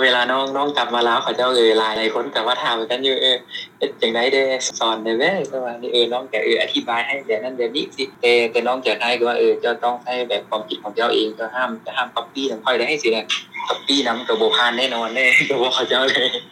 ເວລານ້ອງ ນ້ອງກັບມາລາວ ເຂົາເຈົ້າ ເອີ ຫຼາຍ ຫຼາຍຄົນກໍມາຖາມກັນຢູ່ ເອີ ເຮັດຈັ່ງໃດແດ່ ສອນແດ່ແວ ປະມານນີ້ ເອີ ນ້ອງກໍ ເອີ ອະທິບາຍໃຫ້ແບບນັ້ນແບບນີ້ຊິ ແຕ່ ແຕ່ນ້ອງຈະໄທ ຄືວ່າ ເອີ ເຈົ້າຕ້ອງໃຊ້ແບບຄວາມຄິດຂອງເຈົ້າເອງ ເຈົ້າຫ້າມ ຈະຫ້າມກັອບປີ້ນຳຂ້ອຍໄດ້ ຊີ້ນະ ກັອບປີ້ນຳກໍບໍ່ຜ່ານແນ່ນອນເດ້ ກໍບອກເຂົາເຈົ້າເລີຍ.